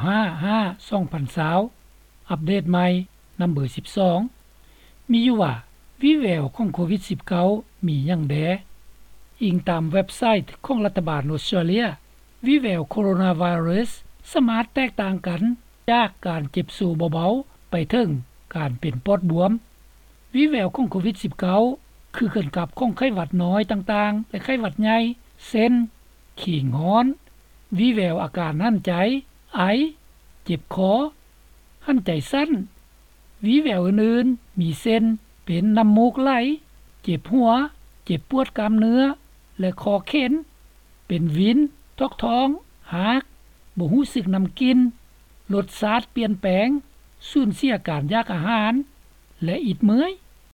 ຫ້າ ຫ້າ ສອງພັນຊາວ ອັບເດດໃໝ່ ນຳເບີສິບສອງ ມີຢູ່ວ່າ ວີແວວຂອງໂຄວິດສິບເກົ້າ ມີຫຍັງແດ່? ອີງຕາມເວັບໄຊຂອງລັດຖະບານອົດສະຕຣາເລຍ, ວີແວວໂຄໂຣນາໄວຣັສສາມາດແຕກຕ່າງກັນຈາກການເຈັບໂຊເບົາໆ ໄປເຖິງການເປັນປອດບວມ. ວີແວວຂອງໂຄວິດສິບເກົ້າ ຄືກັນກັບຂອງໄຂ້ຫວັດນ້ອຍຕ່າງໆ ແລະ ໄຂ້ຫວັດໃຫຍ່ ເຊັ່ນ ຄີງຮ້ອນ, ວີແວວອາການຫັນໃຈ, ໄອ, ເຈັບຄໍ, ຫັນໃຈສັ້ນ. ວີແວວອື່ນໆ ມີເຊັ່ນ ເປັນນ້ຳມູກໄຫຼ, ເຈັບຫົວ, ເຈັບປວດກ້າມເນື້ອ ແລະ ຄໍເຂັນ, ເປັນວິນ, ຖອກທ້ອງ, ຮາກ, ບໍ່ຮູ້ສຶກນ້ຳກິນ, ລົດຊາດປ່ຽນແປງ, ສູນເສຍການຢາກອາຫານ ແລະ ອິດເມື່ອຍ.